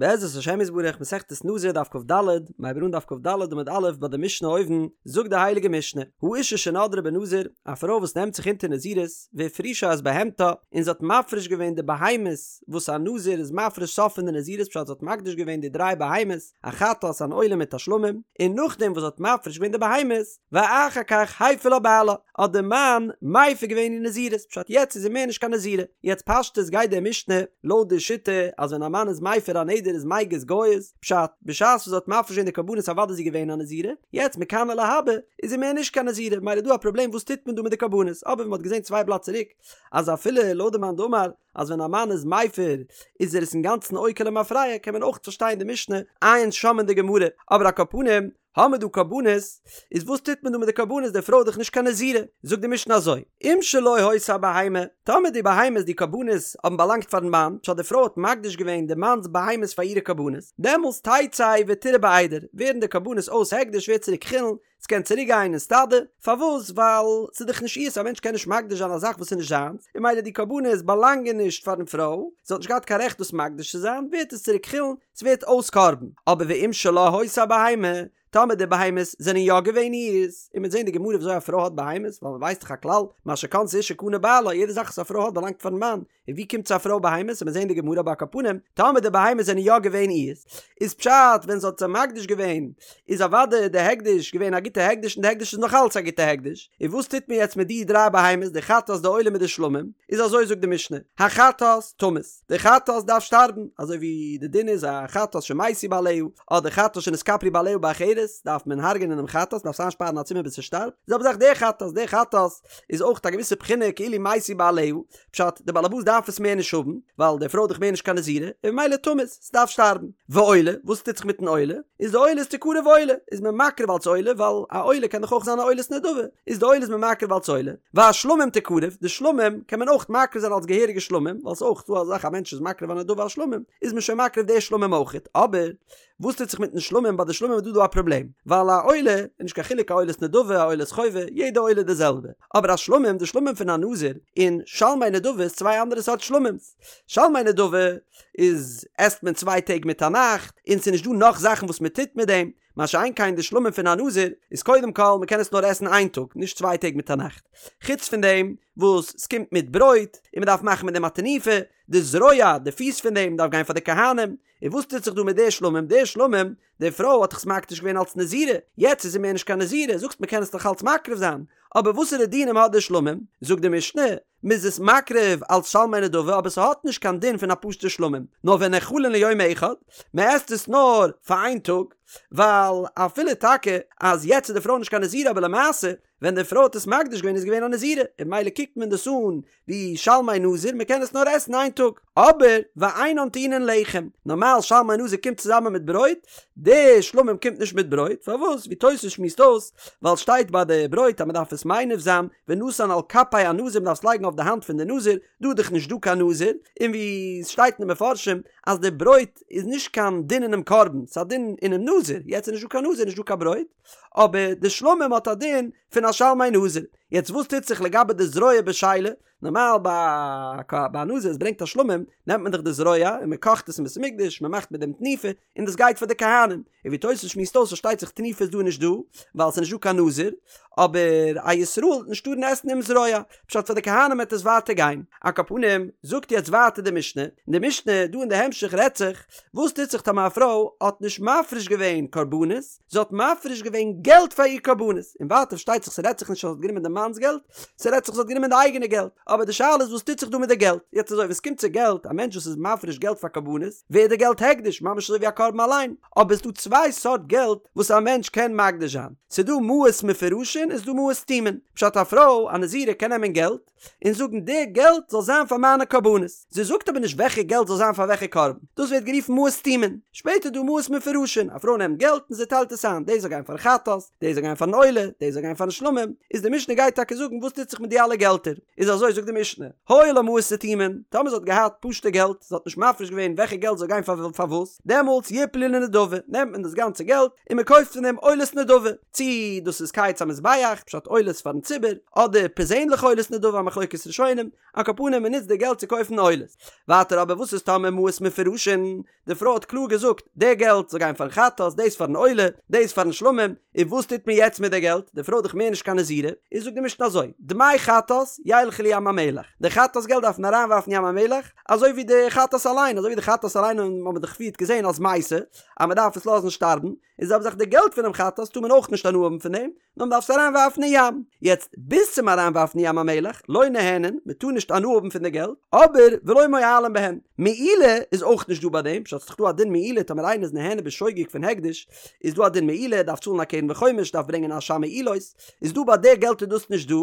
בעזרת השם יתברך מסכת נזיר דף כד, מ'הייבט אן דף כד עמוד א' ביי די משנה אויבן, זאגט די הייליגע משנה, האשה שנדרה בנזיר, א פרוי וואס נעמט זיך אונטער נזירות, והפרישה את בהמתה, און זי האט מפריש געווען די בהמות וואס א נזיר איז מפריש סוף פון די נזירות פשט זי האט מקדיש געווען די דריי בהמות, א חטאת אן עולה מיט א שלמים, און נאכדעם וואס זי האט מפריש געווען די בהמות, ואחר כך הפר לה בעלה, האט די מאן מפר געווען איר נזירות, פשט יעצט איז זי מער נישט קיין נזירה, יעצט פשטות גייט די משנה לויט די שיטה אז ווען א מאן איז מפר א נדר איזמיגז גייז, פשט, בשעת וואס זי האט מפריש געווען די קרבנות אוודאי איז זי געווען א נזירה, יעצט מכאן ולהבא איז זי מער נישט קיין נזירה, ממילא איז דא א פראבלעם וואס טוט מען דא מיט די קרבנות, אבער ווי מען האט געזען צוויי בלאט צוריק אז אפילו לויט די מאן דאמר אז ווען א מאן איז מפר איז ער עס אינגאנצן עוקר למפרע קען מען אויך פארשטיין די משנה, עיין שם אין די גמרא, אבער על כל פנים האמער דא קרבנות, איז וואס טוט מען דא מיט די קרבנות, די פרוי איז דאך נישט קיין נזירה, זאגט די משנה אזוי, אם שלו היתה הבהמה, טאמער די בהמות די קרבנות האבן באלאנגט פארן מאן, פשט די פרוי האט מקדיש געווען די מאנ'ס בהמות פאר אירע קרבנות, דעמאלס תצא ותרעה בעדר, ווערן די קרבנות אויס הקדש ווערט צוריק חולין, ס'קען צוריק גיין אין סטאדע, פארוואס? ווייל ס'איז דאך נישט אירס, א מענטש קען נישט מקדיש זיין א זאך וואס איז נישט זיינס, און ממילא די קרבנות באלאנגען נישט פארן פרוי, זי האט נישט געהאט קיין רעכט דאס מקדיש צו זיין, ווערט עס צוריק חולין, ס'ווערט אויס קרבן, אבער ואם שלה היתה הבהמה, טאמער די בהמות זענען יא געווען אירס, און מ'וועט זען אין די גמרא וויאזוי א פרוי האט בהמות, ווייל מ'ווייסט דאך א כלל, מה שקנתה אשה קנה בעלה, יעדע זאך וואס א פרוי האט באלאנגט פארן מאן, און ווי קומט צו א פרוי בהמות, און מ'וועט זען אין די גמרא אבער על כל פנים, טאמער די בהמות זענען יא געווען אירס, איז פשט ווען זי האט זיי מקדיש געווען, איז אוודאי די הקדש געווען א גוטע הקדש און די הקדש איז נאך אלץ א גוטע הקדש, און וואס טוט מען יעצט מיט די דריי בהמות, די חטאת די עולה מיט די שלמים, איז אזוי זאגט די משנה, החטאת תמות. די חטאת דארף שטארבן, אזוי ווי די דין איז א חטאת שמתו בעליה, אדער חטאת שנתכפרו בעליה באחרת, דארף מען הרג'ענען דעם חטאת, דארף עס איינשפארן א צימער ביז ס'שטארבט, די זעלבע זאך די חטאת, די חטאת איז אויך א געוויסע בחינה כאילו מתו בעליה, פשט, די בעלעבאס דארף עס מער נישט האבן, ווייל די פרוי איז דאך מער נישט קיין נזירה, און ממילא תמות, ס'דארף שטארבן. ועולה, וואס טוט זיך מיטן עולה? איז די עולה איז תקרב עולה, איז מען מקריב אלס עולה, ווייל א עולה קען דאך אויך זיין א עולת נדבה, איז די עולה איז מען מקריב אלס עולה, והשלמים תקרב, די שלמים קען מען אויך מקריב זיין אלס געהעריגע שלמים, ווייל ס'איז אויך דא אזא זאך א מענטש איז מקריב א נדבה אלס שלמים, איז מען שוין מקריב די שלמים אויכעט, אבער וואס טוט זיך מיטן שלמים, ביי די שלמים איז דא דא א פראבלעם, ווייל א עולה איז נישט קיין חילוק א עולת נדבה א עולת חובה, יעדע עולה איז די זעלבע, אבער א שלמים, די שלמים פון א נזיר, און שלמי נדבה איז צוויי אנדערע סארט שלמים'ס, שלמי נדבה איז עסט מען צוויי טעג מיט א נאכט, און ס'איז נישט דא נאך זאכן וואס מען טוט מיט דעם, מה שאין כן די שלמים פון א נזיר איז קודם כל מען קען עס נאר עסן איין טאג נישט צוויי טעג מיט א נאכט, חוץ פון דעם וואס ס'קומט מיט ברויט און מען דארף מאכן מיט דעם א תנופה, די זרוע, די פיס פון דעם דארף גיין פאר די כהנים, און וואס טוט זיך דא מיט די שלמים, די שלמים, די פרוי האט דאך עס מקדיש געווען אלס נזירה, יעצט איז זי מער נישט קיין נזירה, זאגסט מען קען עס נאך אלץ מקריב זיין, אבער וואסערע דינים האט די שלמים, זאגט די משנה, מ'איז עס מקריב אלס שלמי נדבה אבער ס'האט נישט קיין דין פון א פשוטע שלמים, נאר ונאכלין ליום אחד, מ'עסט עס נאר פאר איין טאג, ווייל אפילו טאקע אז יעצט איז די פרוי נישט קיין נזירה אבער למעשה ווען די פרוי האט עס מקדיש געווען איז געווען א נזירה און ממילא קוקט מען דאס אן ווי שלמי נזיר מ'קען עס נאר עסן איין טאג, אבער ואינן טעונין לחם, נארמאל שלמי נזיר קומט צוזאמען מיט ברויט, די שלמים קומט נישט מיט ברויט, פארוואס? ווי תוס' שמועסט אויס, ווייל שטייט ביי די ברויט אז מען דארף עס מניף זיין, ונתן על כפי הנזיר מען דארף עס לייגן אויף די האנט פון די נזיר, דא איז דאך נישט דא קיין נזיר, און ווי עס שטייט אין די מפרשים אז די ברויט איז נישט קיין דין אינעם קרבן, ס'איז א דין אינעם נזיר, יעצט איז נישט דא קיין נזיר נישט דא קיין ברויט, אבער די שלמים האט א דין פון א שלמי נזיר, יעצט וואס טוט זיך לגבי די זרוע בשלה, נארמאל ביי א נזיר וואס ברענגט א שלמים נעמט מען דאך די זרוע און מען קאכט עס אין בית המקדש מען מאכט מיט דעם תנופה און דאס גייט פאר די כהנים און ווי תוס' שמועסט אויס פארשטייט זיך תנופה איז דא נישט דא ווייל ס'איז נישט דא קיין נזיר אבער א ישראל וועט נישט טארן עסן דעם זרוע פשט פאר די כהנים וועט עס ווייטער גיין על כל פנים זאגט יעצט ווייטער די משנה און די משנה דא אין די המשך רעדט זיך וואס טוט זיך טאמער א פרוי האט נישט מפריש געווען קרבנות זי האט מפריש געווען געלט פאר איר קרבנות, און ווייטער פארשטייט זיך ס'רעדט זיך נישט אז זי האט גענומען די מאנ'ס געלט, ס'רעדט זיך זי האט גענומען די אייגענע געלט, אבער די שאלה איז וואס טוט זיך דא מיט די געלט, יעצט אזוי ווען ס'קומט צו געלט, א מענטש וואס איז מפריש געלט פאר קרבנות, ווערט די געלט הקדש, ממש אזוי ווי א קרבן אליין, אבער ס'דא צוויי סארט געלט וואס א מענטש קען מקדיש זיין, ס'דא מעות מפורשין און ס'דא מעות סתומין, פשט א פרוי א נזירה קען נעמען געלט, און זאגן די געלט זאל זיין פאר מיינע קרבנות, זי זאגט אבער נישט וועלכע געלט זאל זיין פאר וועלכע קרבן, דאס ווערט גערופן מעות סתומין, שפעטער איז דא מעות מפורשין, א פרוי נעמט געלט און זי טיילט עס איין, דאס זאל גיין פארן חטאת, דאס זאל גיין פארן עולה, דאס זאל גיין פארן שלמים, איז די משנה גייט. גייט טאקע זאגן וואס טוט זיך מיט די אלע געלטער, איז אזוי זאגט די משנה, היו לה מעות סתומין, טאמער זי האט געהאט פשוטע געלט, זי האט נישט מפריש געווען וועלכע געלט זאל גיין פאר פארוואס, דעמאלטס יפלו לנדבה, נעמט מען דאס גאנצע געלט און מען קויפט פון דעם עולות נדבה, צי דאס איז קיץ המזבח, פשט עולות פארן ציבור, אדער פערזענליכע עולות נדבה א מחלוקת ראשונים, על כל פנים מען נוצט די געלט צו קויפן עולות. ווייטער אבער וואס איז טאמער מעות מפורשין, די פרוי האט קלאר געזאגט, די געלט זאל גיין פארן חטאת, דאס פארן עולה, דאס פארן שלמים, און וואס טוט מען יעצט מיט די געלט? די פרוי איז דאך מער נישט קיין נזירה, איז זאגט די משנה אזוי, דמי חטאת ילכו לים המלח, די חטאת געלט דארף מען אריינווארפן ים המלח, אזוי ווי די חטאת אליין, אזוי ווי די חטאת אליין האבן מיר דאך פריערט געזען אז מתה, אז מען דארף עס לאזן שטארבן, איז זעלבע זאך די געלט פונעם חטאת טאר מען אויך נישט הנאה האבן פון דעם, נאר מען דארף עס אריין ווארפן אין ים. יעצט ביז צום אריין ווארפן אין ים המלח, לא נהנין, מען טאר נישט הנאה האבן פון די געלט, אבער ולא מועלין בהן. מעילה איז אויך נישט דא ביי דעם, פשט ס'איז דאך דא א דין מעילה טאמער איינער איז נהנה בשוגג פון הקדש, איז דא א דין מעילה, ער דארף צאלן א קרן וחומש, דארף ברענגען אשם מעילות, איז דא ביי די געלט איז דאס נישט דא,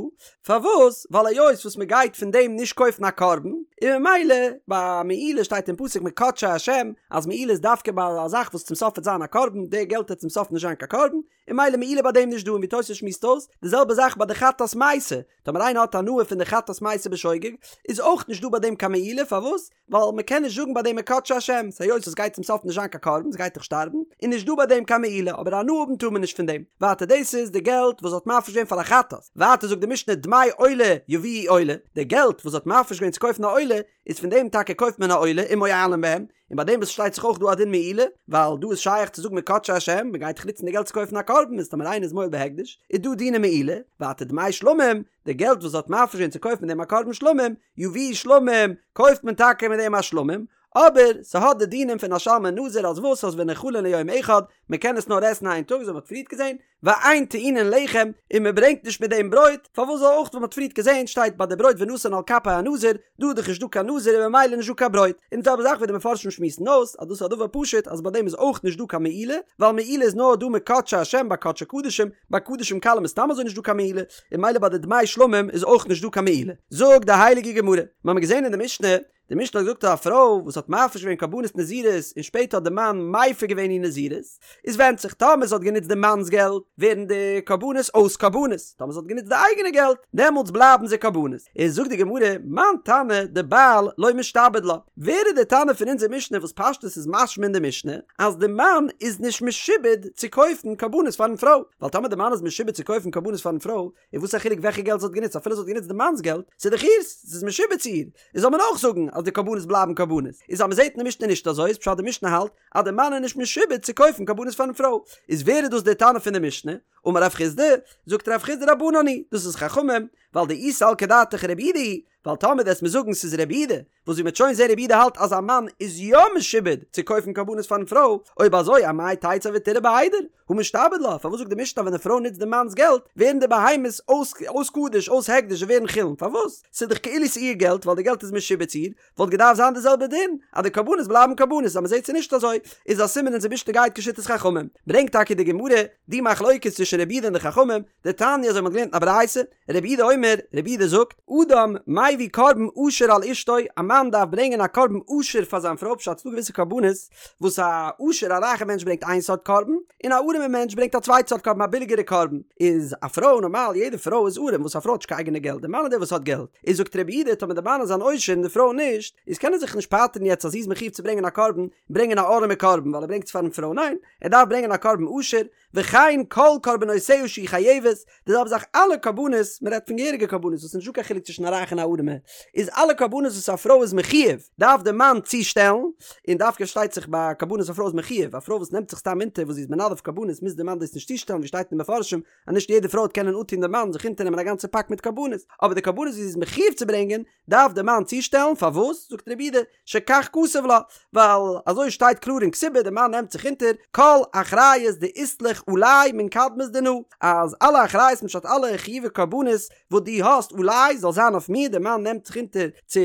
פארוואס? ווייל היות וואס מען גייט פון דעם נישט קויפן א קרבן, און ממילא ביי מעילה שטייט אין פסוק מקדשי השם אז מעילה איז דווקא ביי א זאך וואס צום סוף וועט זיין א קרבן, די געלט וועט צום סוף נישט זיין קיין קרבן, און ממילא מעילה ביי דעם נישט דא און ווי תוס' שמועסט אויס, די זעלבע זאך ביי די חטאת מתה, טאמער איינער האט הנאה פון די חטאת מתה בשוגג, איז אויך נישט דא ביי דעם קיין מעילה, פארוואס? ווייל מען קען נישט זאגן ביי דעם מקדשי השם, ס'היות עס גייט צום סוף נישט זיין קיין קרבן, ס'גייט דאך שטארבן, איז נישט דא ביי דעם קיין מעילה, אבער הנאה האבן טאר מען נישט פון דעם. ווייטער דאס איז די געלט וואס האט מפריש געווען פאר א חטאת. ווייטער זאגט די משנה דמי עולה יביאו עולה, די געלט וואס האט מפריש געווען צו קויפן א עולה, איז פון דעם טאקע קויפט מען א עולה ומועלין בהם, און ביי דעם וואס שטייט זיך אויך דא א דין מעילה, ווייל דא איז שייך צו זאגן מקדשי השם, מען גייט דאך נוצן די געלט צו קויפן א קרבן, איז טאמער איינער איז מועל בהקדש, איז דא דיני מעילה, ווייטער דמי שלמים, די געלט וואס האט מפריש געווען צו קויפן מיט דעם א קרבן שלמים, יביאו שלמים, קויפט מען טאקע מיט דעם א שלמים, אבער ס'האט די דינים פון א שלמי נזיר אז וואס אז ונאכלין ליום אחד, מ'קען עס נאר עסן איין טאג אזוי ווי מ'האט פריערט געזען, ואין טעונין לחם, און מ'ברענגט נישט מיט דעם ברויט, פארוואס זאל אויך ווי מ'האט פריערט געזען שטייט ביי די ברויט ונתן על כפי הנזיר, דא איז דאך נישט דא קיין נזיר און ממילא נישט דא קיין ברויט, און די זעלבע זאך ווי די מפרשים שמועסן אויס אז דאס איז א דבר פשוט אז ביי דעם איז אויך נישט דא קיין מעילה, ווייל מעילה איז נאר דא מקדשי השם ביי קדשי קדשים, ביי קדשים קלים איז סתם אזוי נישט דא קיין מעילה, און ממילא ביי די דמי שלמים איז אויך נישט דא קיין מעילה. זאגט די הייליגע גמרא, מיר האבן געזען אין די משנה, די משנה האט געזאגט אז א פרוי וואס האט מפריש געווען קרבנות נזירות און שפעטער האט די מאן מפר געווען איר נזירות, איז ווענדט זיך, טאמער זי האט גענוצט די מאנ'ס געלט, ווערן די קרבנות אויס קרבנות, טאמער זי האט גענוצט די אייגענע געלט, דעמאלטס בלייבן זיי קרבנות. איז זאגט די גמרא, מאן תנא דבעל לא משתעבד לה, ווער איז די תנא פון אונזער משנה וואס פשטות איז משמע אין די משנה אז די מאן איז נישט משועבד צו קויפן קרבנות פארן פרוי, ווייל טאמער די מאן איז משועבד צו קויפן קרבנות פארן פרוי, איז וואס א חילוק וועלכע געלט זי האט גענוצט אפילו זי האט גענוצט די מאנ'ס געלט, ס'איז דאך איר'ס, ס'איז משועבד צו איר, איז זאל מען אויך זאגן אז די קרבנות בלייבן קרבנות, איז אז מ'זעט אין די משנה נישט אזוי איז פשט די משנה האלט אז די מאן איז נישט משועבד צו קויפן קרבנות פארן פרוי, איז ווער איז דאס די תנא פון די משנה? אמר רב חסדא, זאגט רב חסדא רבנן היא, דאס איז חכמים, ווייל דאי סלקא דעתך רבי יהודה היא, ווייל טאמער וועסט מיר זאגן ס'איז רבי יהודה, וואס ווי מ'וועט שוין זעהן רבי יהודה האלט אז א מאן איז יא משועבד צו קויפן קרבנות פארן פרוי, אויב אזוי אמאי תצא ותרעה בעדר, הא משתעבד לה, פארוואס זאגט די משנה אז ווען די פרוי נוצט די מאנ'ס געלט ווערן די בהמות אויס אויס קדש אויס הקדש זיי ווערן חולין, פארוואס? ס'איז דאך כאילו ס'איר געלט ווייל די געלט איז משועבד צו איר, וואלט געדארפט זיין די זעלבע דין אז די קרבנות בלייבן קרבנות, אז מ'זעט ס'איז נישט אזוי איז א סימן אונזער משנה גייט כשיטת חכמים, ברענגט טאקע די גמרא די מחלוקת צווישן רבי יהודה און די חכמים, דתניא אזוי מ'האט געלערנט אין א ברייתא, רבי יהודה אומר, רבי יהודה זאגט, אדם מביא קרבן עשיר על אשתו, א מאן דארף ברענגען א קרבן עשיר פאר זיין פרוי, פשט ס'דא געוויסע קרבנות וואס א עשיר א רייכע מענטש ברענגט איין סארט קרבן, און א ארעמע מענטש ברענגט א צווייטע סארט קרבן א ביליגערע קרבן, איז א פרוי נארמאל יעדע פרוי איז ארעם וואס א פרוי האט נישט קיין אייגענע געלט די מאן איז דער וואס האט געלט, איז זאגט רבי יהודה טאמער די מאן איז אן עושר און די פרוי נישט, איז קען ער זיך נישט פטר'ן יעצט אז זי איז מחויב צו ברענגען א קרבן, ברענגען א ארעמע קרבן ווייל ער ברענגט עס פארן פרוי, ניין, ער דארף ברענגען א קרבן עשיר, וכן כל קרבנותיה שהיא חייבת, די זעלבע זאך אלע קרבנות, מען רעדט פון געהעריגע קרבנות וואס איז נישטא קיין חילוק צווישן א רייכע און א ארעמע, איז אלע קרבנות וואס א פרוי איז מחויב דארף די מאן צושטעלן, און דווקא שטייט זיך ביי קרבנות א פרוי איז מחויב, א פרוי וואס נעמט זיך סתם אונטער וואס זי איז מנדב קרבנות מוז די מאן דאס נישט צושטעלן ווי שטייט אין די מפרשים אז נישט יעדע פרוי וועט קענען אנטון די מאן זיך אונטערנעמען א גאנצע פאק מיט קרבנות, אבער די קרבנות וואס זי איז מחויב צו ברענגען דארף די מאן צושטעלן, פארוואס? זאגט רבי יהודה, שכך כתוב לה, ווייל אזוי שטייט קלאר אין כתובה, די מאן נעמט זיך אונטער כל אחריות דאית לך עלי מן קדמת דנא, אז אלע אחריות פשט אלע חיובי קרבנות וואס דו האסט עלי זאל זיין אויף מיר, די מאן. מאן נעמט זיך אונטער צו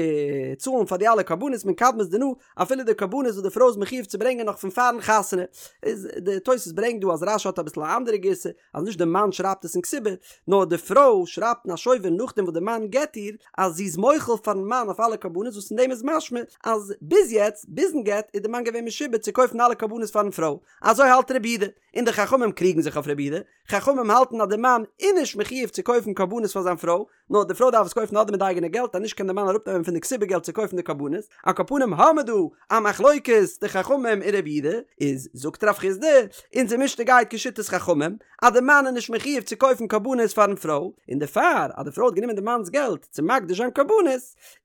צאלן פאר די אלע קרבנות מן קדמת דנא, אפילו די קרבנות וואס די פרוי איז מחיוב צו ברענגען נאך פון פארן חתונה. איז די תוס' ברענגט דא אז רש"י האט אביסל א אנדערע גירסא, אז נישט די מאן שרייבט עס אין כתובה, נאר די פרוי שרייבט אין א שובר נאכדעם וואס די מאן גט איר, אז זי איז מוחל פארן מאן אויף אלע קרבנות וואס פון דעם איז משמע אז ביז יעצט, ביזן גט, איז די מאן געווען משועבד צו קויפן אלע קרבנות פארן פרוי. אזוי האלט רבי יהודה, און די חכמים קריגן זיך אויף רבי יהודה, חכמים האלטן אז די מאן איז נישט מחיוב צו קויפן קרבנות פאר זיין פרוי, נאר די פרוי דארף עס קויפן אדער מיט די אייגענע געלט אז נישט קען די מאן אראפנעמען פון די כתובה געלט צו קויפן די קרבנות, על כל פנים האמער דא א מחלוקת די חכמים און רבי יהודה, איז זאגט רב חסדא, אונזער משנה גייט כשיטת חכמים, אז די מאן איז נישט מחיוב צו קויפן קרבנות פארן פרוי, און דערפאר אז די פרוי האט גענומען די מאנ'ס געלט צו מקדיש זיין קרבנות,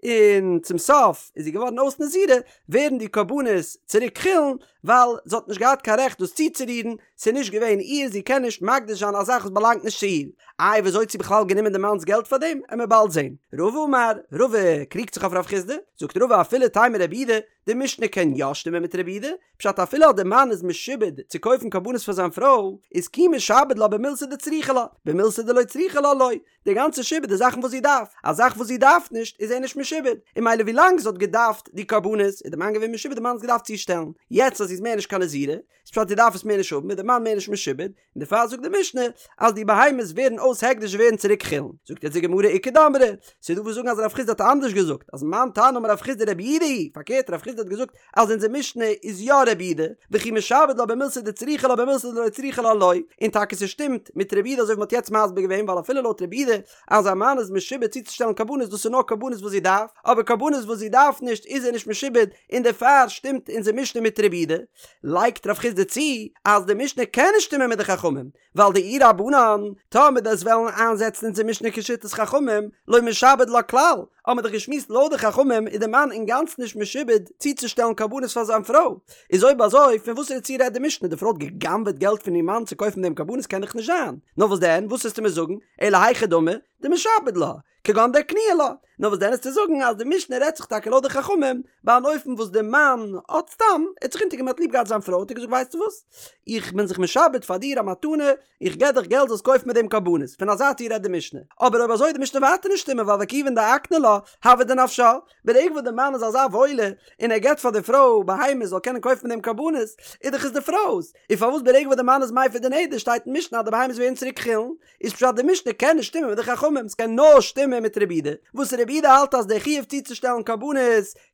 און צום סוף איז זי געווארן אויס נזירה, ווערן די קרבנות צוריק חולין, ווייל זי האט נישט געהאט קיין רעכט דאס צוצורירן, ס'איז נישט געווען איר, זי קען נישט מקדיש זיין א זאך וואס באלאנגט נישט צו איר. איי וויאזוי האט זי בכלל גענומען די מאנ'ס געלט פאר דעם? עמער באלד זען. רבא אמר, רבא קריגט זיך אויף רב חסדא, זאגט רבא אפילו תימא רבי יהודה, די משנה קען יא שטימען מיט רבי יהודה, פשט אפילו אז די מאן איז משועבד צו קויפן קרבנות פאר זיין פרוי, איז כי משעבד לה במילתא דצריכא לה, במילתא דלא צריכא לה לא, די גאנצע שעבוד איז זאכן וואס זי דארף, א זאך וואס זי דארף נישט איז ער נישט משועבד, און ממילא ווילאנג זי האט געדארפט די קרבנות איז די מאן געווען משועבד די מאן האט עס געדארפט צושטעלן, יעצט אז זי איז מער נישט קיין נזירה, איז פשט זי דארף עס מער נישט האבן איז די מאן מער נישט משועבד, און דערפאר זאגט די משנה אז די בהמות ווערן אויס הקדש און ווערן צוריק חולין, זאגט יעצט די גמרא איכא דאמרי, ס'איז דא וואס זאגן אז רב חסדא האט אנדערש געזאגט, אז מאן תנא אמר רב חסדא רבי יהודה היא, פארקערט רב חסדא האט געזאגט אז אונזער משנה איז יא רבי יהודה, וכי משעבד לה במילתא דצריכא לה במילתא דלא צריכא לה לא, און טאקע ס'שטימט מיט רבי יהודה אזוי ווי מ'האט יעצט מסביר געווען ווייל אפילו לויט רבי יהודה אז א מאן איז משועבד צוצושטעלן קרבנות דאס איז נאר קרבנות וואס זי דארף, אבער קרבנות וואס זי דארף נישט איז ער נישט משועבד און דערפאר שטימט אונזער משנה מיט רבי יהודה. לייגט רב חסדא צו אז די משנה קען נישט שטימען מיט די חכמים, ווייל דאי רבנן, טאמער דו'סט וועלן איינזעצן אונזער משנה כשיטת חכמים, לא משעבד לה כלל, האמער דאך געשמועסט לויט די חכמים איז די מאן אינגאנצן נישט משועבד צוצושטעלן קרבנות פאר זיין פרוי, איז אויב אזוי פון וואסערע ציור רעדט די משנה, די פרוי האט גע'גנב'עט געלט פון איר מאן צו קויפן דעם קרבנות קען דאך נישט זיין, נאר וואס דען, וואס וועסטו מיר זאגן, אלא היכי דמי, דמשעבד לה, כגון דאקנוה לה, נאר וואס דען איז צו זאגן אז די משנה רעדט זיך טאקע לויט די חכמים, ביי אן אופן וואס די מאן האט סתם, ער האט זיך אונטערגענומען האט ליב געהאט זיין פרוי האט ער געזאגט ווייסטו וואס, איך בין זיך משעבד פאר דיר א מתנה, איך געב דיך געלט זאלסט קויפן מיט דעם קרבנות, פון אזא ציור רעדט די משנה, אבער אויב אזוי וועט די משנה ווייטער נישט שטימען ווייל וכיוון דאקני לה, הוה דנפשה, ברגע וואס די מאן איז אזא וואוילער און ער געבט פאר די פרוי בהמות זאל קענען קויפן מיט דעם קרבנות, איז דאך עס די פרוי'ס, און פארוואס ברגע וואס די מאן איז מפר די נדר שטייט אין משנה אז די בהמות ווערן צוריק חולין, איז פשט די משנה קען נישט שטימען מיט די חכמים, ס'קען נאר שטימען מיט רבי יהודה, וואס רבי יהודה האלט אז דער חיוב צוצושטעלן קרבנות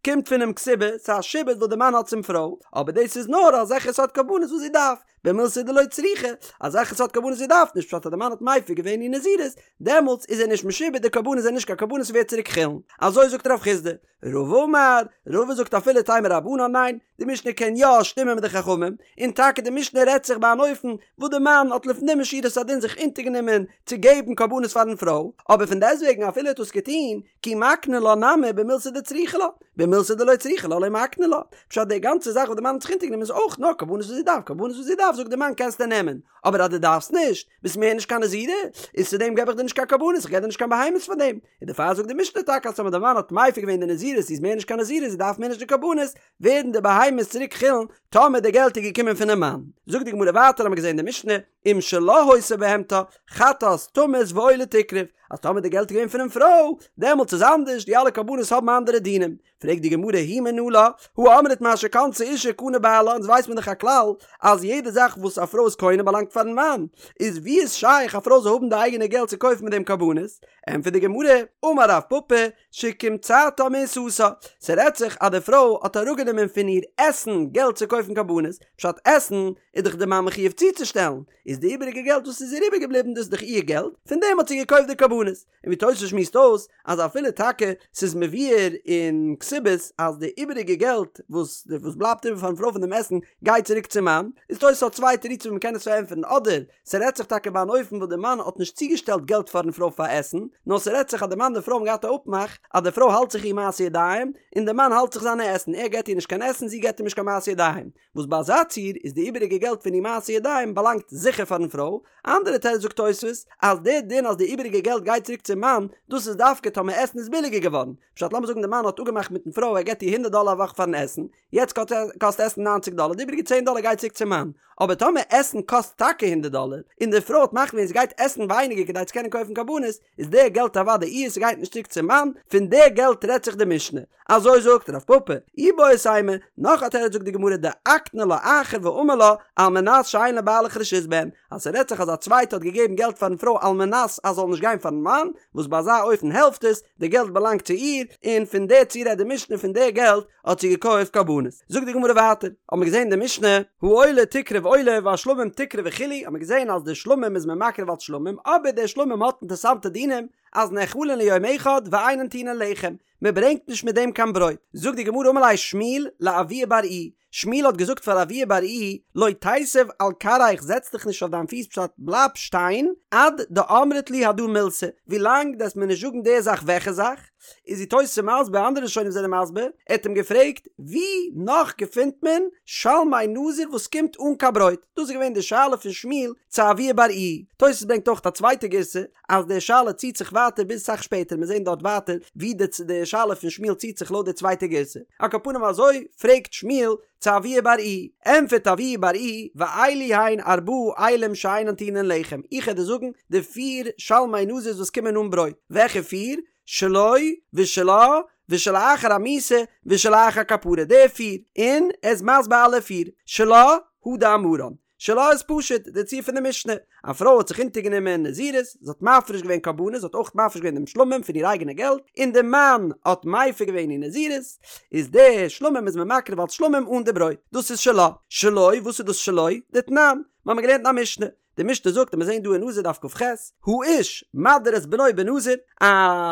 קומט פונעם כתובה, ס'איז א שעבוד וואס די מאן האט צום פרוי, אבער דאס איז נאר אזעלכע סארט קרבנות וואס זי דארף, במילתא דלא צריכא, אזעלכע סארט קרבנות זי דארף נישט, פשט אז די מאן האט מפר געווען איר נזירות, דעמאלטס איז ער נישט משועבד, די קרבנות זענען נישט קיין קרבנות ס'ווערט צוריק חולין, אזוי זאגט רב חסדא. רבא אמר, רבא זאגט אפילו תימא רבנן ניין, די משנה קען יא שטימען מיט די חכמים, און טאקע די משנה רעדט זיך ביי אן אופן וואס די מאן האט לפנים משורת הדין זיך אונטערגענומען צו געבן קרבנות פארן פרוי, אבער פון דעסטוועגן אפילו ער האט דאס געטון, כי מקני לה נמי במילתא דצריכא לה, במילתא דלא צריכא לה לא מקני לה, פשט די גאנצע זאך וואס די מאן האט זיך אונטערגענומען איז אויך נאר קרבנות וואס זי דארף, קרבנות וואס זי דארף זאגט די מאן קענסטו נעמען, אבער אז דו דארפסט נישט, ביסט מער נישט קיין נזירה, איז צו דעם געב איך דיר נישט קיין קרבנות, איך געב דיר נישט קיין בהמות פאר דעם. און דערפאר זאגט די משנה טאקע אז טאמער די מאן האט מפר געווען די נזירות זי איז מער נישט קיין נזירה זי דארף מער נישט די קרבנות, ווערן די בהמות צוריק חולין טאמער די געלט איז געקומען פונעם מאן. זאגט די גמרא ווייטער האמיר געזען די משנה, אם שלה היתה בהמתה, חטאת תמות ועולה תקרב, אז טאמער די געלט איז געווען פונעם פרוי, דעמאלטס איז אנדערש, די אלע קרבנות האבן אנדערע דינים. פרעגט די גמרא היא מנא לה, הא אמרת מה שקנתה אישה קנה בעלה, אונז ווייסט מען דאך א כלל אז יעדע זאך וואס א פרוי איז קונה באלאנגט פארן מאן, איז ווי איז שייך א פרוי זאל האבן די אייגענע געלט צו קויפן מיט דעם קרבנות? ענטפערט די גמרא, אמר רב פפא, שקמצתה מעיסתה, ס'רעדט זיך אז די פרוי האט אראפגענומען פון איר עסן געלט צו קויפן קרבנות, פשט עסן איז דאך די מאן מחויב צוצושטעלן, איז די איבעריגע געלט וואס איז איר איבערגעבליבן דאס איז דאך איר געלט, פון דעם האט זי געקויפט די קרבנות. און ווי תוס' שמועסט אויס אז אפילו טאקע ס'איז מבואר אין כתובות אז די איבעריגע געלט וואס וואס בלייבט איבער פארן פרוי פון דעם עסן גייט צוריק צום מאן, איז תוס' האט צוויי תירוצים ווי מ'קען עס פארענטפערן אדער ס'רעדט זיך טאקע ביי אן אופן וואס די מאן האט נישט צוגעשטעלט געלט פארן פרוי פאר עסן, נאר ס'רעדט זיך אז די מאן און די פרוי האבן געהאט א אפמאך אז די פרוי האלט זיך איר מעשי ידיים און די מאן האלט זיך זיינע עסן, ער געט איר נישט קיין עסן זי געט אים נישט קיין מעשי ידיים, וואס ביי אזא ציור איז די איבעריגע געלט פון איר מעשי ידיים באלאנגט זיכער פארן פרוי, אנדערע תירוץ זאגט תוספות אז די דין אז די איבעריגע געלט. געלט גייט צוריק צום מאן, דאס איז דווקא טאמער עסן איז ביליגער געווארן, פשט לאמיר זאגן די מאן האט אפגעמאכט מיטן פרוי ער געבט איר הונדערט דאלער א וואך פארן עסן, יעצט קאסט עסן ניינציג דאלער, די איבעריגע צען דאלער גייט צוריק צום מאן, אבער טאמער עסן קאסט טאקע הונדערט דאלער, און די פרוי האט מחליט געווען זי גייט עסן ווייניגער כדי צו קענען קויפן קרבנות, איז די געלט אוודאי איר, ס'גייט נישט צוריק צום מאן, פון די געלט רעדט זיך די משנה. אזוי זאגט רב פפא, איבעית אימא, נאך א תירוץ זאגט די גמרא דאקני לה אחר ואמר לה על מנת שאין לבעלך רשות בהן, אז ס'רעדט זיך אז א צווייטע האט געגעבן געלט פארן פרוי על מנת אז זאל נישט גיין פארן מאן, וואס ביי אזא אופן העלפט עס, די געלט באלאנגט צו איר, און פון די ציור רעדט די משנה פון די געלט האט זי געקויפט קרבנות. זאגט די גמרא ווייטער, האט מען געזען אין די משנה, העולה תקרב עולה והשלמים תקרב וכו', האט מען געזען אז די שלמים איז מען מקריב אלס שלמים, אבער די שלמים האט אינטערסאנטע דינים, אז נאכלין ליום אחד ואינן טעונין לחם, מען ברענגט נישט מיט דעם קיין ברויט. זאגט די גמרא אמר ליה שמואל לאבוה בר איהי, שמואל האט געזאגט פאר אבוה בר איהי, לא תיתיב על כרעיך זעץ דיך נישט אויף דיין פיס פשט בלייב שטיין, עד דאמרת לי הדא מילתא, ווילאנג דו וועסט מיר נישט זאגן די זאך וועלכע זאך, איז די תוס' מסביר אנדערע ראשונים זענען מסביר, ער האט אים געפרעגט ווי נאך געפינט מען שלמי נזיר וואס קומט אן קיין ברויט, דאס איז געווען די שאלה פון שמואל צו אבוה בר איהי, תוס' ברענגט אויך א צווייטע גירסא אז די שאלה ציט זיך ווייטער ביז סאך שפעטער, מיר זעהן דארט ווייטער ווי די די שאלה פון שמואל ציט זיך לויט די צווייטע גירסא, על כל פנים אזוי פרעגט שמואל צו אבוה בר איהי, ענטפערט אבוה בר איהי, ואלו הן ארבעה אילים שאינן טעונין לחם, איך העט דיר זאגן די פיר שלמי נזיר וואס קומען אן ברויט, וועלכע פיר? שלו ושלה ושלאחר המיתה ושלאחר כפרה, די פיר, און ער איז מסביר אלע פיר, שלה הא דאמרן, שלה איז פשוט די ציור פון די משנה, א פרוי האט זיך אונטערגענומען נזירות, זי האט מפריש געווען קרבנות, זי האט אויך מפריש געווען דעם שלמים פון איר אייגענע געלט, און די מאן האט מפר געווען איר נזירות, איז די שלמים איז מען מקריב אלס שלמים אן די ברויט, דאס איז שלה. שלו, וואס איז דאס שלו? דתנן, מיר האבן געלערנט אין א משנה, די משנה זאגט און מיר זעהן דא אין נזיר דף כ"ח, האיש מדיר את בנו בנזיר, א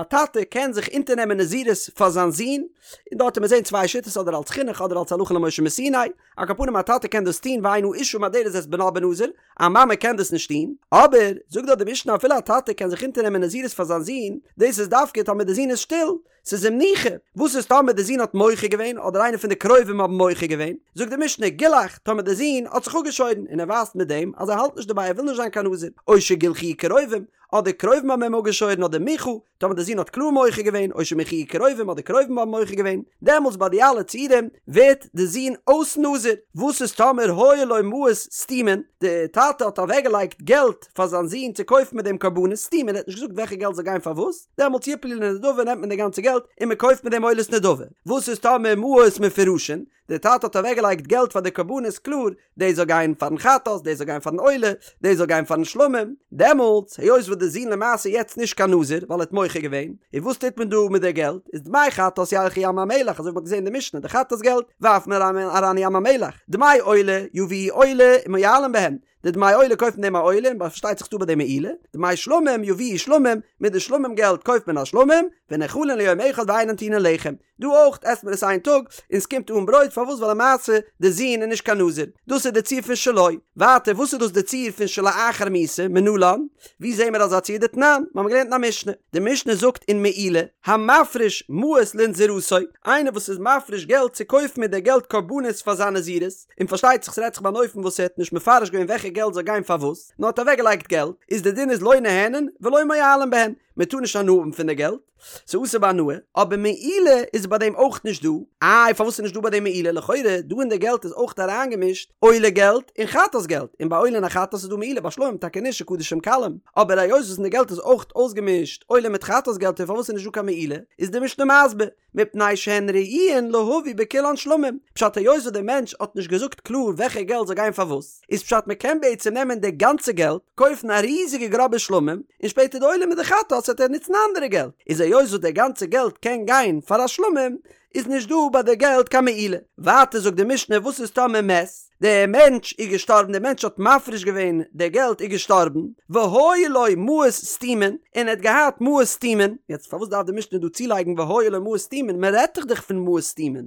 טאטע קען זיך אונטערנעמען נזירות פאר זיין זון, און דארט וועט מען זעהן צוויי שיטות אדער אלס חינוך אדער אלס הלכה למשה מסיני, על כל פנים א טאטע קען דאס טון ואין האשה מדרת את בנה בנזיר, א מאמע קען דאס נישט טון, אבער זאגט דארט די משנה אפילו א טאטע קען זיך אונטערנעמען נזירות פאר זיין זון, דאס איז דווקא טאמער די זון איז שטיל, ס'איז אים ניחא, וואס איז טאמער די זון האט מוחה געווען אדער איינער פון די קרובים האבן מוחה געווען, זאגט די משנה גילח, טאמער די זון האט זיך אפגעשוירן און ער ווייזט מיט דעם אז ער האלט נישט דערביי ער וויל נישט זיין קיין נזיר, או שגילחוהו קרובים, אדער קרובים האבן אים אפגעשוירן אדער מיחה, טאמער די זון האט קלאר מוחה געווען, או שמיחוהו קרובים אדער קרובים האבן מוחה געווען, דעמאלטס ביי די אלע ציורים ווערט די זון אויס נזיר, וואס איז טאמער היו לו מעות סתומין, די טאטע האט אוועקגעלייגט געלט פאר זיין זון צו קויפן מיט דעם קרבנות סתומין, ער האט נישט געזאגט וועלכע געלט זאל גיין פאר וואס, דעמאלטס יפלו לנדבה נעמט מען די גאנצע געלט און מען קויפט מיט דעם עולת נדבה, וואס איז טאמער מעות מפורשין, די טאטע האט אוועקגעלייגט געלט פאר די קרבנות קלאר, דאס זאל גיין פארן חטאת, דאס זאל גיין פארן עולה, דאס זאל גיין פארן שלמים, דעמאלטס היות וואס די זון למעשה יעצט נישט קיין נזיר ווייל ער האט מוחה געווען, און וואס טוט מען דא מיט די געלט, איז דמי חטאת ילכו ים המלח אזוי ווי מ'האט געזען אין די משנה, די חטאת געלט ווארפט מען אריין אין ים המלח, דמי עולה יביאו עולה ומועלין בהן, די דמי עולה קויפט מען דעם א עולה און פארשטייט זיך ס'דא ביי דעם מעילה, דמי שלמים יביאו שלמים, מיט די שלמים געלט קויפט מען א שלמים, ונאכלין ליום אחד ואינן טעונין לחם, דא אויך עסט מען עס איין טאג און ס'קומט אן ברויט, פארוואס ווייל למעשה די זון איז נישט קיין נזיר, דאס איז די ציור פון שלו, ווייטער וואס איז דאס די ציור פון שלאחר מיתה, מנלן, ווי זעהן מיר אזא ציור דתנן, מיר האבן געלערנט אין א משנה, די משנה זאגט אין מעילה, המפריש מעות לנזירותו, איינער וואס איז מפריש געלט צו קויפן מיט די געלט קרבנות פאר זיין נזירות, און פארשטייט זיך ס'רעדט זיך ביי אן אופן וואס ער האט נישט מפרש געווען וועלכע געלט זאל גיין פאר וואס, נאר האט אוועקגעלייגט געלט, איז די דין איז לא נהנין ולא מועלין בהן, מען טאר נישט הנאה האבן פון די געלט, ס'איז אסור בהנאה, אבער מעילה איז ביי דעם אויך נישט דא, איי פארוואס איז נישט דא ביי דעם מעילה, לכאורה דא אין די געלט איז אויך אריינגעמישט עולה געלט און חטאת געלט, און ביי עולה און א חטאת איז דא מעילה, ביי שלמים טאקע נישט קדשים קלים, אבער היות וואס אין די געלט איז אויך אויסגעמישט עולה מיט חטאת געלט און פארוואס איז נישט דא קיין מעילה, איז די משנה מסביר, מפני שהן ראויין להביא בכולן שלמים, פשט היות וואס דער מענטש האט נישט געזאגט קלאר וועלכע געלט זאל גיין פאר וואס, איז פשט מען קען בעצם נעמען די גאנצע געלט, קויפן א ריזיגע גראבע שלמים, און שפעטער די עולה מיט די חטאת וועט ער נוצן אנדערע געלט, איז היות וואס די גאנצע געלט קען גיין פאר א שלמים, איז נישט דא ביי די געלט קיין מעילה. ווייטער זאגט די משנה וואס איז טאמער מת, דער מענטש איז געשטארבן, דער מענטש האט מפריש געווען די געלט איז געשטארבן, והיו לו מעות סתומין, און ער האט געהאט מעות סתומין, יעצט פארוואס דארף די משנה דא צולייגן והיו לו מעות סתומין, מען רעדט דאך דאך פון מעות סתומין,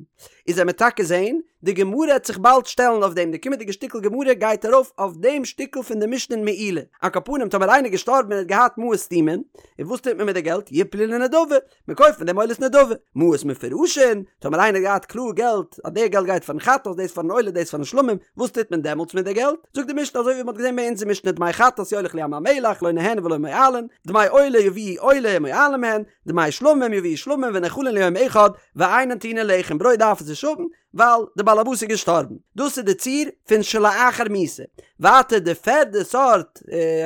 איז עמיר טאקע זעהן, די גמרא העט זיך באלד שטעלן אויף דעם, די קומענדיגע שטיקל גמרא גייט ארויף אויף דעם שטיקל פון די משנה אין מעילה, על כל פנים טאמער איינער איז געשטארבן און ער האט געהאט מעות סתומין, און וואס טוט מען מיט די געלט, יפלו לנדבה, מען קויפט מיט דעם עולת נדבה, מעות מפורשין, טאמער איינער האט געהאט קלאר געלט אז די געלט גייט פארן חטאת, דאס פארן עולה, דאס פארן שלמים, וואס טוט מען דעמאלטס מיט די געלט? זאגט די משנה אזוי ווי מען האט געזען ביי אונזער משנה דמי חטאת יוליך לים המלח לא נהנין ולא מועלין, דמי עולה יביאו עולה ומועלין מהן, דמי שלמים יביאו שלמים ונאכלין ליום אחד ואינן טעונין לחם, ברויט דארף עס נישט האבן, ווייל די בעלעבאס איז געשטארבן. דאס איז די ציור פון שלאחר מיתה. ווייטער די פערדע סארט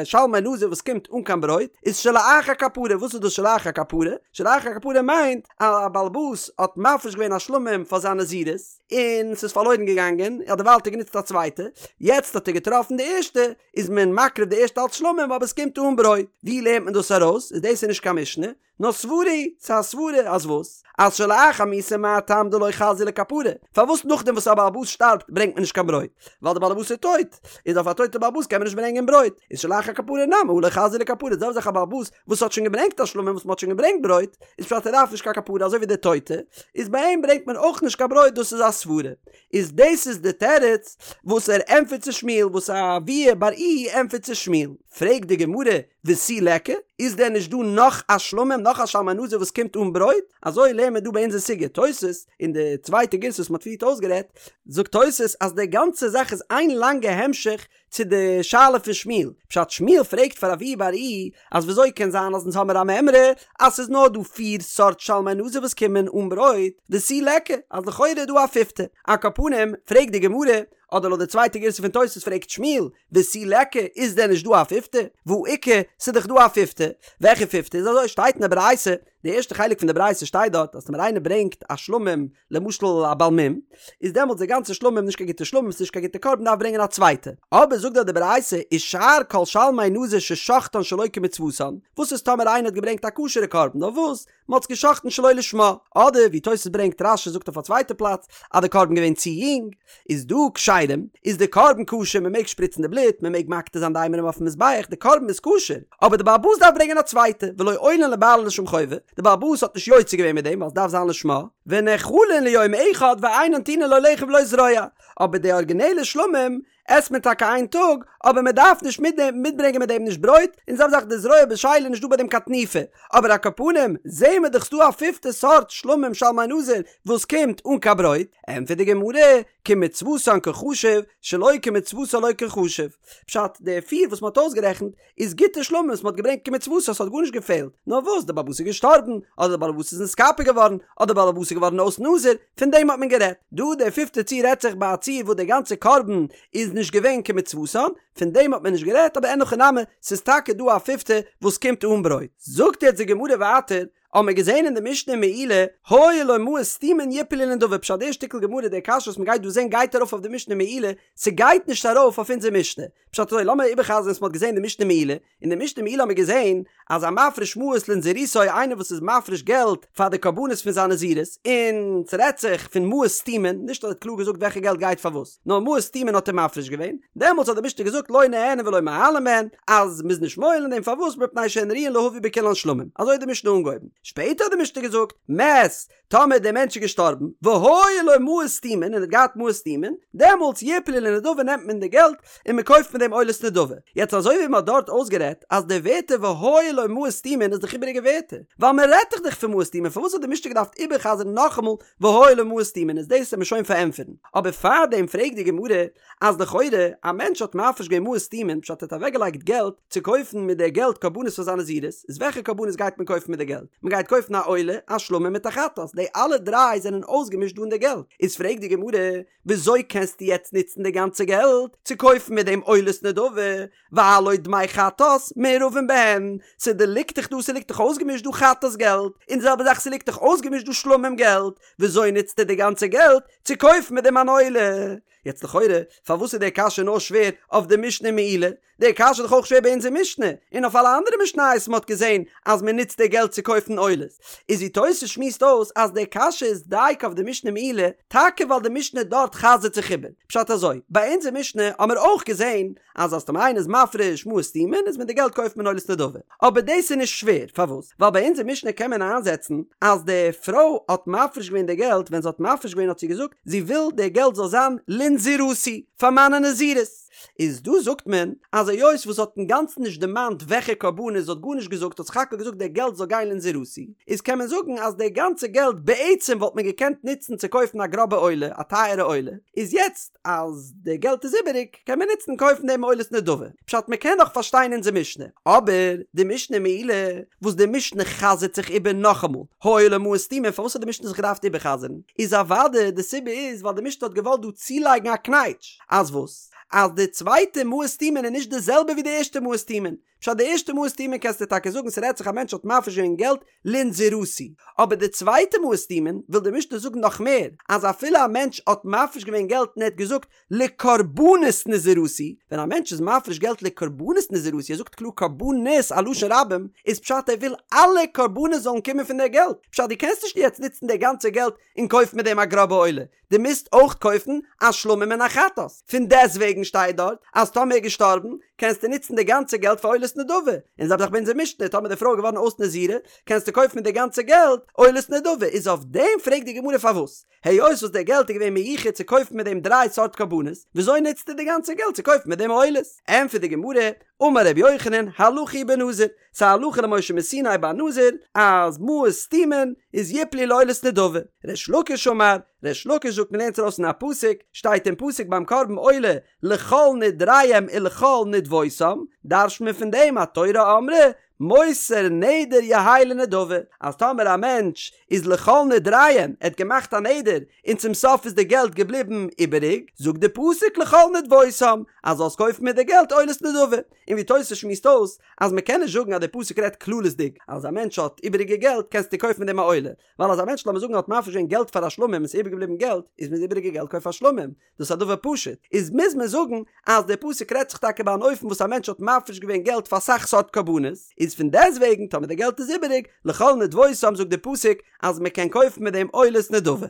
שלמי נזיר וואס קומט אן קיין ברויט איז שלאחר כפרה. וואס איז דאס שלאחר כפרה? שלאחר כפרה מיינט אז א בעלעבאס האט מפריש געווען א שלמים פאר זיין נזירות און ס'איז פארלוירן געגאנגען, אדערווייל האט ער גענוצט א צווייטע, יעצט האט ער געטראפן די ערשטע, איז מען מקריב די ערשטע אלץ שלמים אבער עס קומט אן ברויט. ווי לערנט מען דאס ארויס? איז דאס איז נישט קיין משנה, נאר סברא היא, ס'איז א סברא אז וואס? אז שלאחר מיתה מה טעם דלא חזיא לכפרה? פארוואס נאכדעם וואס א בעל הבית שטארבט ברענגט מען נישט קיין ברויט? ווייל די בעל הבית איז טויט, איז אויף א טויטע בעל הבית קען מען נישט ברענגען ברויט, איז שלאחר כפרה נמי הא לא חזיא לכפרה, די זעלבע זאך א בעל הבית וואס האט שוין געברענגט א שלמים וואס מ'האט שוין געברענגט ברויט, איז פשט ער דארף נישט קיין כפרה אזוי ווי די טויטע, איז ביי אים ברענגט מען אויך נישט קיין ברויט דאס איז א סברא. איז דאס איז די תירוץ וואס ער ענטפערט צו שמואל וואס אבוה בר איהי ענטפערט צו שמואל. פרעגט די גמרא, ותו ליכא? איז דען נישט דא נאך א שלמים, נאך א שלמי נזיר וואס קומט אן ברויט? אזוי לערנט מען דא ביי אונזער סוגיא. תוס', אין די צווייטע גירסא וואס מען האט פריערט אויסגערעדט, זאגט תוס' אז די גאנצע זאך איז איין לאנגע המשך צו די שאלה פון שמואל. פשט, שמואל פרעגט פאר אבוה בר איהי אז וויאזוי קען זיין אז אונז האמיר א מימרא אז ס'איז נאר דא פיר סארט שלמי נזיר וואס קומען אן ברויט, ותו ליכא, אז לכאורה איז דא א פיפטע. על כל פנים, פרעגט די גמרא, אדער לויט די צווייטע גירסא פון תוס' פרעגט שמואל, ותו ליכא, איז דען נישט דא א פיפטע? והא איכא, ס'איז דאך דא א פיפטע. וועלכע פיפטע? איז אזוי, שטייט אין די ברייתא, די ערשטע חלק פון די ברייתא שטייט דארט אז טאמער איינער ברענגט א שלמים, למשל א בעל מום, איז דעמאלטס די גאנצע שלמים נישט קיין גוטע שלמים, ס'איז נישט קיין גוטע קרבן דארף ברענגען א צווייטע. אבער זאגט דארט די ברייתא, ושאר כל שלמי נזיר ששחטן שלא כמצוותן, וואס איז טאמער איינער האט געברענגט א כשר'ע קרבן, נאר וואס? מען האט עס געשחט'ן שלא לשמה, אדער ווי תוס' ברענגט רש"י זאגט אויף א צווייטע פלאץ אז די קרבן געווען צו יונג, איז דא כשרים, איז די קרבן כשר מען מעג שפריצן די בלוט, מען מעג מקטיר זיין די אימורים אויפן מזבח, די קרבן איז כשר, אבער די בעל הבית דארף ברענגען א צווייטע, ולא עולין לבעלן לשם חובה, די בעל הבית האט נישט יוצא געווען מיט דעם ווייל עס דארף זיין לשמה, ונאכלין ליום אחד ואינן טעונין לא לחם ולא זרוע, אבער די ארגינעלע שלמים עסט מען טאקע איין טאג, אבער מען דארף נישט מיטברענגען מיט דעם נישט ברויט, און זעלבע זאך די זרוע בשלה איז נישט דא ביי דעם קיין תנופה, אבער על כל פנים זעהן מיר דאך ס'דא א פיפטע סארט שלמים שלמי נזיר וואס קומט אן קיין ברויט, ענטפערט די גמרא, כמצוותן קא חשיב, שלא כמצוותן לא קא חשיב, פשט, די פיר וואס מען האט אויסגערעכנט איז גוטע שלמים וואס מען האט געברענגט כמצוותן ס'האט גארנישט געפעלט, נאר וואס די בעל הבית איז געשטארבן, אדער די בעל הבית איז נתכפר געווארן, אדער די בעל הבית איז געווארן אויס נזיר, פון דעם האט מען גערעדט. דא די פיפטע ציור רעדט זיך ביי א ציור וואס די גאנצע קרבן איז נישט געווען כמצוותן, פון דעם האט מען נישט גערעדט, אבער אין הכי נמי, ס'איז טאקע דא א פיפטע וואס קומט אן ברויט. זאגט יעצט די גמרא ווייטער, האבן מיר געזען אין די משנה אין מעילה, היו לו מעות סתומין יפלו לנדבה, פשט די שטיקל גמרא די קשיא וואס מ'גייט דא זען גייט ארויף אויף די משנה מעילה, ס'גייט נישט ארויף אויף אונזער משנה. פשט אזוי, לאמיר איבערחזר'ן וואס מ'האט געזען אין די משנה מעילה, אין די משנה מעילה האבן מיר געזען אז המפריש מעות לנזירותו איינער וואס איז מפריש געלט פאר די קרבנות פון זיין נזירות, און ס'רעדט זיך פון מעות סתומין, נישט אז ער האט קלאר געזאגט וועלכע געלט גייט פאר וואס, נאר מעות סתומין האט ער מפריש געווען, דעמאלטס האט די משנה געזאגט לא נהנין ולא מועלין בהן, אז מ'איז נישט מועל אין דעם פארוואס מפני שהן ראויין להביא בכולן שלמים, אזוי האט די משנה אנגעהויבן, שפעטער האט די משנה געזאגט, מת, טאמער דער מענטש איז געשטארבן, והיו לו מעות סתומין, און ער האט געהאט מעות סתומין, דעמאלטס יפלו לנדבה נעמט מען די געלט און מען קויפט מיט דעם עולת נדבה. יעצט אזוי ווי מען האט דארט אויסגערעדט אז די ווערטער והיו לו מעות סתומין איז דאך איבעריגע ווערטער, ווייל מען רעדט דאך דאך פון מעות סתומין, פארוואס האט די משנה געדארפט איבערחזר'ן נאכאמאל והיו לו מעות סתומין, איז דאס וועט מען שוין פארענטפערן. אבער פארדעם פרעגט די גמרא, אז לכאורה א מענטש האט מפריש געווען מעות סתומין פשט ער האט אוועקגעלייגט געלט צו קויפן מיט די געלט קרבנות פאר זיין נזירות, איז וועלכע קרבנות גייט מען קויפן מיט די געלט? מען גייט קויפן א עולה, א שלמים מיט א חטאת, די אלע דריי זענען אויסגעמישט דא אין די געלט, איז פרעגט די גמרא, וויאזוי קענסטו יעצט נוצן די גאנצע געלט צו קויפן מיט דעם עולת נדבה, והלא דמי חטאת מעורבין בהן, ס'ליגט דאך דא ס'ליגט דאך אויסגעמישט דא חטאת געלט, און די זעלבע זאך ס'ליגט דאך אויסגעמישט דא שלמים געלט, וויאזוי נוצטו די גאנצע געלט צו קויפן מיט דעם אן עולה? יעצט לכאורה, פארוואס איז די קשיא נאר שווער אויף די משנה מעילה? די קשיא איז דאך אויך שווער ביי אונזער משנה, און אויף אלע אנדערע משניות מ'האט געזען אז מ'נוצט די געלט צו קויפן עולות. איז ווי תוס' שמועסט אויס אז די קשיא איז דייקא אויף די משנה מעילה, טאקע ווייל די משנה דארט חזר'ט זיך איבער. פשט אזוי, ביי אונזער משנה האמיר אויך געזען אז אז טאמער איינער איז מפריש מעות סתומין איז מיט די געלט קויפט מען עולת נדבה. אבער דאס איז נישט שווער, פארוואס? ווייל ביי אונזער משנה קען מען איינזעצן אז די פרוי האט מפריש געווען די געלט, ווען זי האט מפריש געווען האט זי געזאגט זי וויל די געלט זאל זיין לנזירותי, פאר מיינע נזירות. איז דא זאגט מען אז היות וואס האט אינגאנצן נישט דערמאנט וועלכע קרבנות זי האט גארנישט געזאגט האט סך הכל געזאגט די געלט זאל גיין לנזירותי איז קען מען זאגן אז די גאנצע געלט בעצם וואלט מען געקענט נוצן צו קויפן א גראבע עולה א טייערע עולה איז יעצט אז די געלט איז איבעריג קען מען נוצן קויפן דעם עולת נדבה פשט מען קען נאך פארשטיין אונזער משנה אבער די משנה מעילה וואס די משנה חזר'ט זיך איבער נאכאמאל היו לו מעות סתומים פארוואס האט די משנה זיך געדארפט איבערחזר'ן איז אוודאי די סיבה איז ווייל די משנה האט געוואלט דא צולייגן א קנייטש אז וואס? אז די צווייטע מעות סתומין איז נישט די זעלבע ווי די ערשטע מעות סתומין. פשט די ערשטע מעות סתומין קענסטו טאקע זאגן ס'רעדט זיך א מענטש האט מפריש געווען געלט לנזירותי. אבער די צווייטע מעות סתומין וויל די משנה זאגן נאך מער, אז אפילו א מענטש האט מפריש געווען געלט און ער האט געזאגט לקרבנות נזירותי, ווען א מענטש איז מפריש געלט לקרבנות נזירותי, ער זאגט קלאר קרבנות א לשון רבים, איז פשט ער וויל אלע קרבנות זאלן קומען פון די געלט. פשט דו קענסט נישט יעצט נוצן די גאנצע געלט און קויפן מיט דעם א גראבע עולה. דו מוזט אויך קויפן א שלמים און א חטאת, פון דעסוועגן שטייט דארט אז טאמער איז געשטארבן קענסטו נוצן די גאנצע געלט פאר עולת נדבה, און זעלבע זאך ביי אונזער משנה טאמער די פרוי איז געווארן אויס נזירה קענסטו קויפן מיט די גאנצע געלט עולת נדבה, איז אויף דעם פרעגט די גמרא פארוואס היות וואס די געלט איז געווען מיוחד צו קויפן מיט דעם דריי סארט קרבנות וויאזוי נוצטו די גאנצע געלט צו קויפן מיט דעם עולות? ענטפערט די גמרא, אמר רבי יוחנן, הלכה היא בנזיר, ס'איז א הלכה למשה מסיני ביי נזיר אז מעות סתומין איז יפלו לעולת נדבה. ריש לקיש אמר, ריש לקיש זאגט מ'לערנט ארויס אין א פסוק, שטייט אין פסוק ביים קרבן עולה לכל נדריהם ולכל נדבותם, דרש'ט מען פון דעם התורה אמרה מותר נדר יהא לנדבה, אז טאמער א מענטש איז לכל נדריהם, ער האט געמאכט א נדר און צום סוף איז די געלט געבליבן איבעריג, זאגט די פסוק לכל נדבותם, אז זאלסט קויפן מיט די געלט עולת נדבה. און ווי תוס' שמועסט אויס אז מען קען נישט זאגן אז די פסוק רעדט כללית'דיג אז א מענטש האט איבעריגע געלט קענסטו קויפן מיט דעם א עולה, ווייל אז א מענטש לאמיר זאגן האט מפריש געווען געלט פאר א שלמים און ס'איז איבערגעבליבן געלט איז מיט די איבעריגע געלט קויף א שלמים, דאס איז א דבר פשוט, איז מוז מען זאגן אז די פסוק רעדט זיך טאקע ביי אן אופן וואס א מענטש האט מפריש געווען געלט פאר אסאך סארט קרבנות, איז פון דעסוועגן טאמער די געלט איז איבעריג, לכל נדבותם זאגט די פסוק אז מען קען קויפן מיט דעם עולת נדבה.